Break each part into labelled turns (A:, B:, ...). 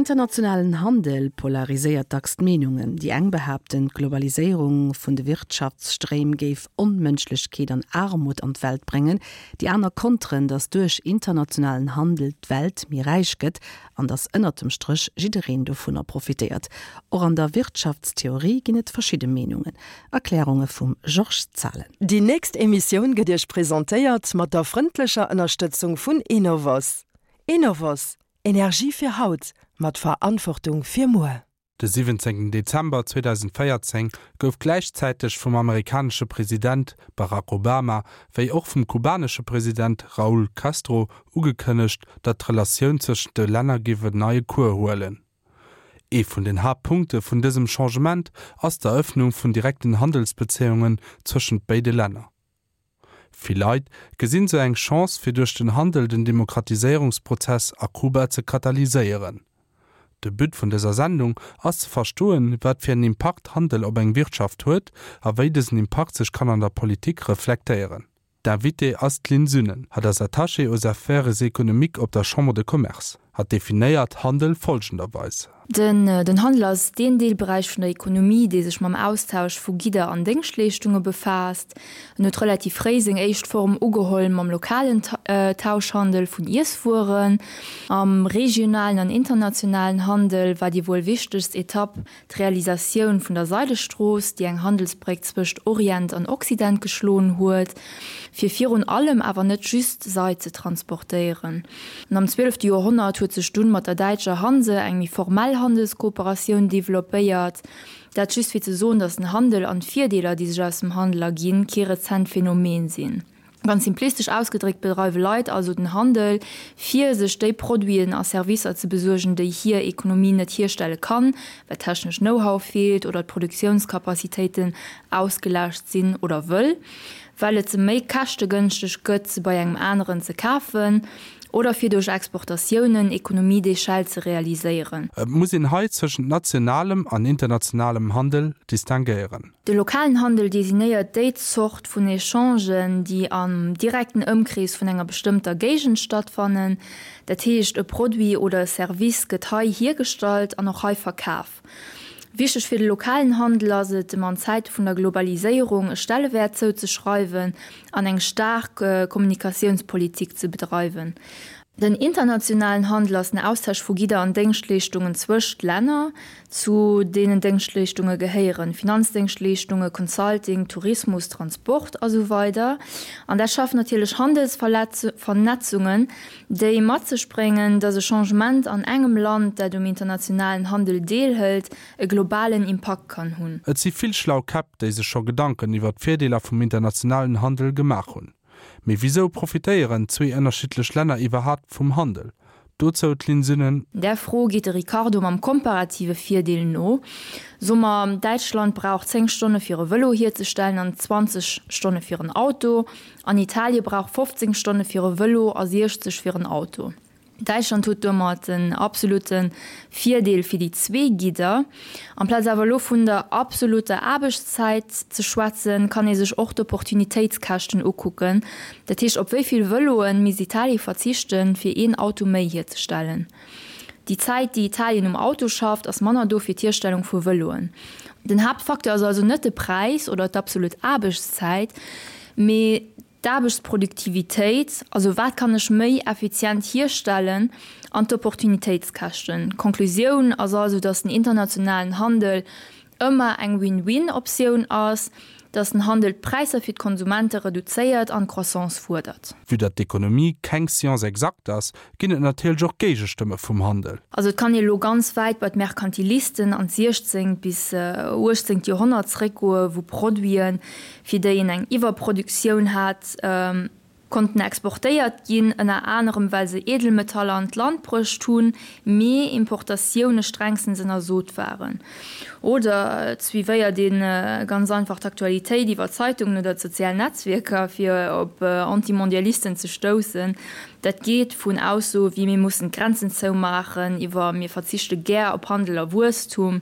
A: internationalen Handel polariséiert dacks d'Meenungen. Déi eng behaapten, d'Globaliséierung vun de Wirtschaftsstréim géif Onmënschlechkeet an Aarmut an d'Welt bréngen. Déi aner konteren, datt duerch internationalen Handel d'Welt méi räich gëtt an datt ënnert dem Stréch jiddereen dovunner profitéiert. Och an der Wirtschaftstheorie ginn et verschidde Meenungen. Erklärunge vum Georges Zahlen.
B: Déi nächst Emissioun gëtt Iech presentéiert mat der frëndlecher Ënnerstëtzung vun Enovos. Enovos, Energie fir haut, mat Verantwortung fir muer.
C: De 17 Dezember 2014 gouf gläichzäiteg vum amerikanesche President Barack Obama wéi och vum kubanesche President Raúl Castro ugekënnegt, datt d'Relatioun zwëschent de Länner géif en neie Cours huelen. Ee vun den Haaptpunkte vun dësem Changement ass d'Erëffnung vun direkten Handelsbezéiungen zwëschent béide Länner. Vill Leit gesinn sou eng Chance fir duerch den Handel den Demokratiséierungsprozess a Kuba ze katalyséieren. De But vun dëser Sendung ass ze verstoen, wat fir en Impakt Handel op eng Wirtschaft huet a wéi dësen Impakt sech kann an der Politik reflektéieren. D'Invitée ass d'Lynn Sünnen. Hatt ass Attachée aux affaires économiques op der Chambre de Commerce. Hatt definéiert Handel folgenderweis.
D: Den Handel ass deen Deelberäich vun der Ekonomie, dee sech mam Austausch vu Gidder an Déngschtleeschtunge befaasst. En huet relativ fréi seng éischt Form ugeholl mam lokalen Tauschhandel vun Iesswueren. Am regionalen an internationalen Handel war déi wuel wichtegst Etapp D'Realisatioun vun der Seidestrooss, déi eng Handelsbréck zwëscht Orient an Occident geschloen huet, fir virun allem, awer net just, Seid ze transportéieren. An am zwielefte Joerhonnert huet sech dunn mat der däitscher Hanse eng méi formell Handelskooperatioun developpéiert. Dat just fir ze soen, datt den Handel an d'Virdeeler, déi sech aus dem Handel erginn, kee rezent Phänomen sinn. Ganz simplistesch ausgedréckt bedreiwe Leit also den Handel, fir sech déi Produiten a Servicer ze besuergen, déi hir Ekonomie net hierstelle kann, well technesch Know-how feelt oder d'Produktiounskapazitéiten ausgelaascht sinn oder wëll well et se méi käschtegënschteg gëtt, se bei engem aneren ze kafen oder fir duerch Exportatiounen Économies d'échelle ze realiséieren.
C: Et muss een hei zwëschent nationalem an internationalem Handel distinguéieren.
D: De lokalen Handel designéiert déi Zort vun Echangen, déi am direkten Ëmkrees vun enger bestëmmter Géigend stattfannen. Dat heescht, e Produit oder e Service gëtt hei hiergestallt an och hei verkaf. Wichteg fir de lokalen Handel ass et, em an Zäite vun der Globaliséierung e Stellewäert zouzeschreiwen an eng staark Kommunikatiounspolitik ze bedreiwen. Den internationalen Handel ass den Austausch vu Gidder an Déngschtleeschtungen zwëscht Länner. Zu deenen Déngschtleeschtunge gehéieren Finanzdéngschtleeschtunge, Consulting, Tourismus, Transport a sou weider. An dat schafft natierlech Handelsvernetzungen, déi mat sech bréngen, datt e Changement an engem Land, dat um internationalen Handel deelhëlt, e globalen Impakt kann hunn.
C: Et si vill schlau Käpp, déi sech scho Gedanken iwwer d'Virdeeler vum internationalen Handel gemaach hunn. Mee wisou profitéieren zwee ënnerschiddlech Länner iwwerhaapt vum Handel? Dozou d'Lynn Sünnen.
D: Där Fro geet de Ricardo mam komparative Virdeel no. So mer, Däitschland brauch 10 Stonne fir e Vëlo hierzestellen an 20 Stonne fir en Auto, an Italie brauch 15 Stonne fir e Vëlo a 60 fir en Auto. Däitschland huet domat en absolutte Virdeel fir déi zwee Gidder. Amplaz awer elo vun der absolutter Aarbechtszäit ze schwätzen, kann ee sech och d'Opportunitéitskäschten ukucken. Dat heescht, op wéi vill Vëloe misst Italie verzichten, fir een Auto méi hierzestellen? Déi Zäit, déi Italien um Auto schafft, ass manner do fir d'Hierstellung vu Vëloen. Den Haaptfacteur ass also net de Präis oder d'absolut Aarbechtszäit, mee D'Aarbechtsproduktivitéit, also wat kann ech méi effizient hierstellen, an d'Opportunitéitskäschten. D'Konklusioun ass also, dass den internationalen Handel ëmmer eng Win-win-Optioun ass, dass den Handel d'Präisser fir d'Konsumente reduzéiert an d'Croissance fuerdert.
C: Vue datt d'Ekonomie keng Science exacte ass, ginn et natierlech och Géigestëmme vum Handel.
D: Also et kann ee lo ganz wäit bei d'Merkantilisten an d'siechzéngt bis uechtzéngt Joerhonnert zeréckgoe wou Produiten, fir déi een eng Iwwerproduktioun hat, konnten exportéiert ginn, ënner anerem well se Edelmetaller an d'Land bruecht hunn, mee Importatioune strengstens ënnersot waren. Oder et suivéiert ee ganz einfach d'Aktualitéit iwwer Zeitungen oder d'sozial Netzwierker, fir op Antimondialisten ze stoussen. Dat geet vun Aussoe wéi mir mussen d'Grenzen zoumaachen iwwer mir verzichte gär op Handel a Wuesstum.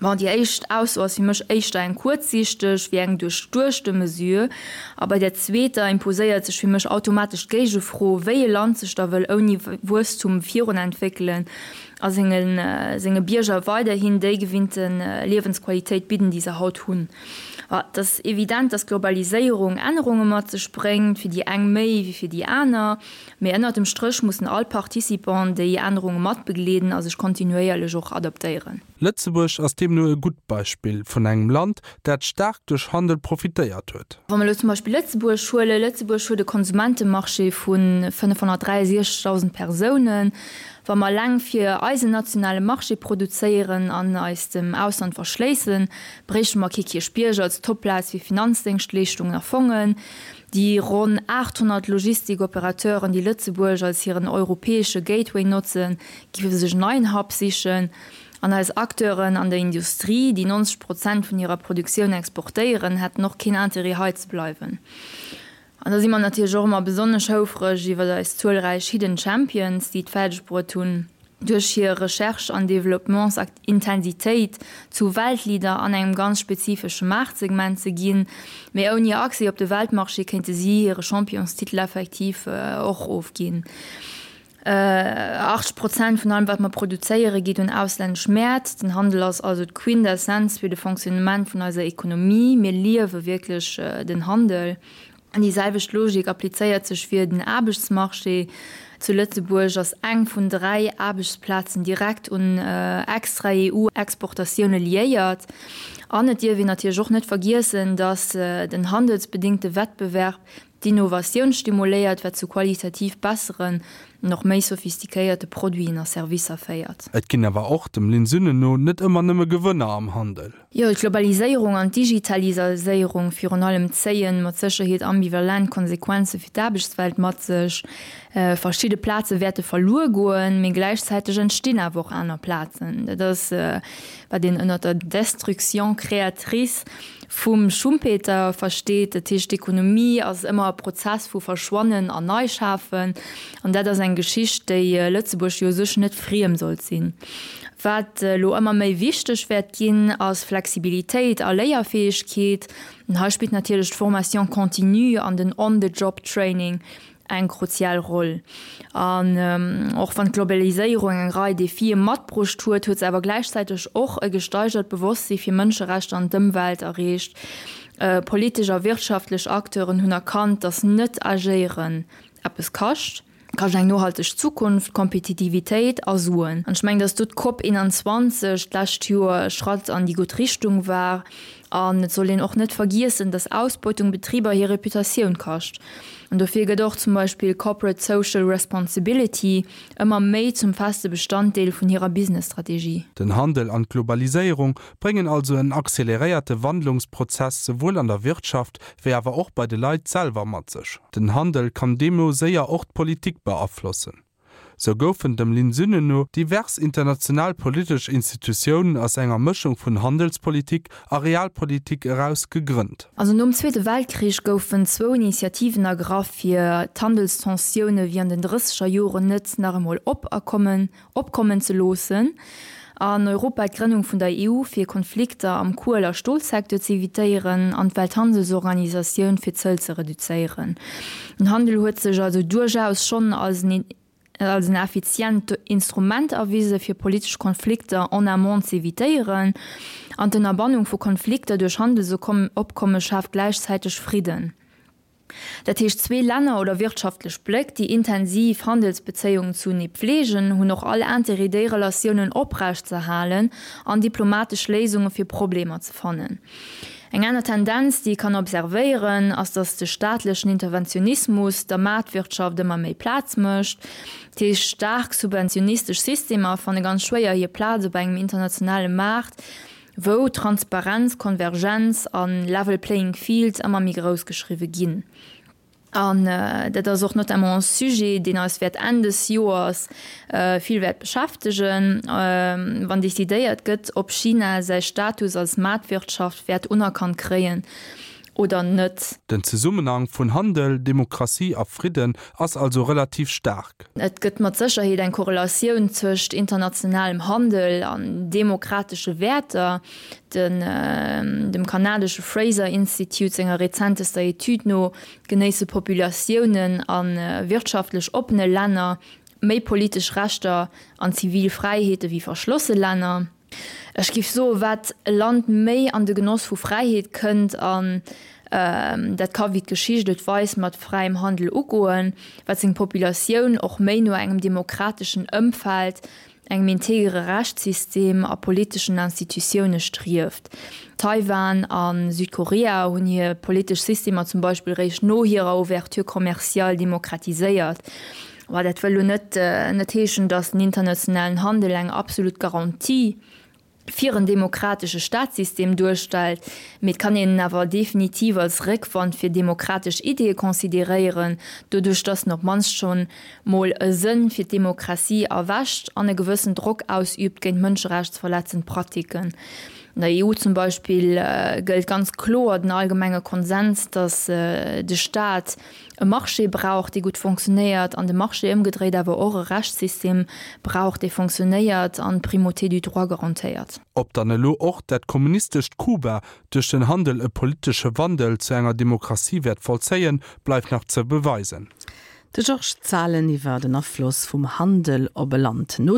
D: Bon, déi éischt Ausso ass fir mech éischter eng kuerzsiichteg wéi eng duerchduechte Mesure. A bei där zweeter imposéiert sech fir mech automatesch d'Géigefro, wéi e Land sech da wëll ouni Wuesstum virunentwéckelen a senge Bierger weiderhin déi gewinnte Liewensqualitéit bidden, déi se haut hunn. Et ass evident, dass d'Globaliséierung Ännerunge mat sech bréngt, fir déi eng méi wéi fir déi aner. Mee ënnert dem Stréch mussen all Participant déi Ännerunge matbegleeden a sech kontinuéierlech och adaptéieren.
C: Lëtzebuerg ass deemno e gutt Beispill vun engem Land, dat staark duerch Handel profitéiert huet.
D: Wa mer elo zum Beispill Lëtzebuerg huelen, Lëtzebuerg huet e Konsumentemarché vu 563.000 Persounen. Wa mer eleng fir eisen nationale Marché produzéieren an eis dem Ausland verschléissen, bréichte mer kee Kierchbierg als Topplaz fir Finanzdéngschtleeschtungen a Fongen. Déi ronn 800 Logistik-Operateuren, déi Lëtzebuerg als hiren europäesche Gateway notzen, géife sech en neien Hub sichen. An eis Acteuren an der Industrie, déi 90 Prozent vun hirer Produktioun exportéieren, hätten och keen Interêt hei ze bleiwen. An da si mer natierlech och ëmmer besonnesch houfreg iwwer eis zuelräich Hidden Champions, déi et fäerdeg bruet hunn, duerch hir Recherche an Développements-Intensitéit zu Weltleader an engem ganz spezifesche Maartsegment ze ginn. Mee ouni Accès op de Weltmarché kéinte si hire Championstitel effektiv och ofginn. 80 Prozent vun allem, wat mer produzéieren, geet un auslännesch Mäert. Den Handel ass also d'Quintessenz fir de Fonctionnement vun eiser Ekonomie. Mir liewe wierklech den Handel. An déi selwecht Logik applizéiert sech fir den Aarbechtsmarché. Zu Lëtzebuerg ass eng vun 3 Aarbechtsplazen direkt un extra EU-Exportatioune liéiert. An et dierf een natierlech och net vergiessen, datt den handelsbedéngte Wettbewerb d'Innovatioun stimuléiert, wat zu qualitativ besseren an och méi sophistiquéierte Produiten a Servicer féiert.
C: Et ginn awer och, dem Lynn Sünnen no, net ëmmer nëmme Gewënner am Handel.
D: Jo, d'Globaliséierung an d'Digitaliséierung virun allem zéien mat Sécherheet ambivalent Konsequenze fir d'Aarbechtswelt mat sech. Verschidde Plaze wäerte verluer goen, mee gläichzäiteg entstinn awer och aner Plazen. Dat ass, wat een ënnert der Destruction créatrice Vum Schumpeter versteet. Dat heescht, d'Ekonomie ass ëmmer e Prozess vu Verschwannen an Neischafen. An dat ass eng Geschicht, déi Lëtzebuerg jo u sech net friem sollt sinn. Wat elo ëmmer méi wichteg wäert ginn, ass Flexibilitéit a Léierfäegkeet. An hei spillt natierlech d'Formation continue an den On-the-job-Training eng kruzial Roll. An och wann d'Globaliséierung eng Rei Defie matbruecht huet, huet se awer gläichzäiteg och e gesteigert Bewosstsi fir Mënscherechter an d'Ëmwelt erreecht. Politesch a wirtschaftlech Acteuren hunn erkannt, datt net-Agéieren eppes kascht. Kascht eng nohalteg Zukunft, Kompetitivitéit a Suen. An ech mengen, datt do d'COP 21 d'lescht Joer e Schratt an déi gutt Richtung war. An et soll een och net vergiessen, dass Ausbeutung Betriber hir Reputatioun kascht. An dofir gëtt och zum Beispill Corporate Social Responsibility ëmmer méi zum feste Bestanddeel vun hirer Business-Strategie.
C: Den Handel an d'Globaliséierung bréngen also en acceleréierte Wandlungsprozess souwuel an der Wirtschaft wéi awer och bei de Leit selwer mat sech. Den Handel kann deemno séier och d'Politik beaflossen. Sou goufen dem Lynn Sünnen no divers international politesch Institutiounen aus enger Mëschung vun Handelspolitik a Realpolitik eraus gegrënnt.
D: Also nom Zweete Weltkrich goufen zwou Initiativen ergraff, fir d'Handelstensioune wéi an den drësseger Joren net nach emol op a kommen opkommen ze loossen. An Europa d'Grënnung vun der EU fir Konflikter am Kuel a Stolsecteur ze evitéieren an d'Welthandelsorganisatioun fir d'Zëll ze reduzéieren. Den Handel huet sech also duerchaus schonn als en als en effizient Instrument erwise fir politesch Konflikter en amont z'evitéieren. An d'Ënnerbannung vu Konflikter duerch Handelsopkomme schaaft gläichzäiteg Fridden. Dat heescht, zwee Länner oder wirtschaftlech Bléck, déi intensiv Handelsbezéiungen zunee pfleegen, hunn och all Intérêt, déi Relatiounen oprecht ze halen an diplomatesch Léisunge fir Problemer ze fannen. Eng aner Tendenz, déi ee kann observéieren, ass, datt de staatlechen Interventionismus der Maartwirtschaft ëmmer méi Plaz mécht. Dat heescht, staark subventionistesch Systemer fanne ganz schwéier hir Plaz op engem internationale Maart, wou Transparenz, Konvergenz a level playing field ëmmer méi grouss geschriwwe ginn. An dat ass och notamment e Sujet, deen eis wäert Enn des Joers vill wäert beschäftegen, wann decidéiert gëtt, ob China säi Status als Maartwirtschaft wäert unerkannt kréien. Oder net.
C: Den Zesummenhang vun Handel, Demokratie a Fridden ass also relativ staark.
D: Et gëtt mat Sécherheet eng Korrelatioun zwëscht internationalem Handel an demokratesche Wäerter. Den dem kanadesche Fraser Institute senger rezentester Etüd no genéisse Populatiounen a wirtschaftlech oppene Länner méi politesch Rechter an zivil Fräiheete wéi verschlosse Länner. Ech géif soen, wat e Land méi an de Genoss vu Fräiheet kënnt, an dat ka wéi d'Geschicht et weist mat fräiem Handel ugoen, wat seng Populatioun och méi no engem demokrateschen Ëmfeld, engem integere Rechtssystem a politeschen Institutioune strieft. Taiwan a Südkorea hunn hir politesch Systemer zum Beispill réischt no hirer Ouverture commerciale demokratiséiert. Mä dat wëll elo net net heeschen, datt den internationalen Handel eng absolut Garantie fir en demokratesche Staatssystem duerstellt, mee et kann een en awer definitiv als Réckwand fir demokratesch Ideeë consideréieren, doduerch datt en op d'mannst schonn mol e Sënn fir d'Demokratie erwächt an e gewëssen Drock ausüübt géint mënscherechtsverletzend Pratiken. An der EU zum Beispill gëllt ganz kloer den allgemenge Konsens, datt de Staat e Marché brauch, dee gutt fonctionnéiert, an de Marché ëmgedréit awer och e Rechtssystem brauch, dee fonctionnéiert an d'Primauté du droit garantéiert.
C: Ob dann elo och dat kommunistescht Kuba duerch den Handel e politesche Wandel zu enger Demokratie wäert vollzéien, bleift nach ze beweisen.
A: De Georges Zahlen iwwer den Afloss vum Handel op e Land. No.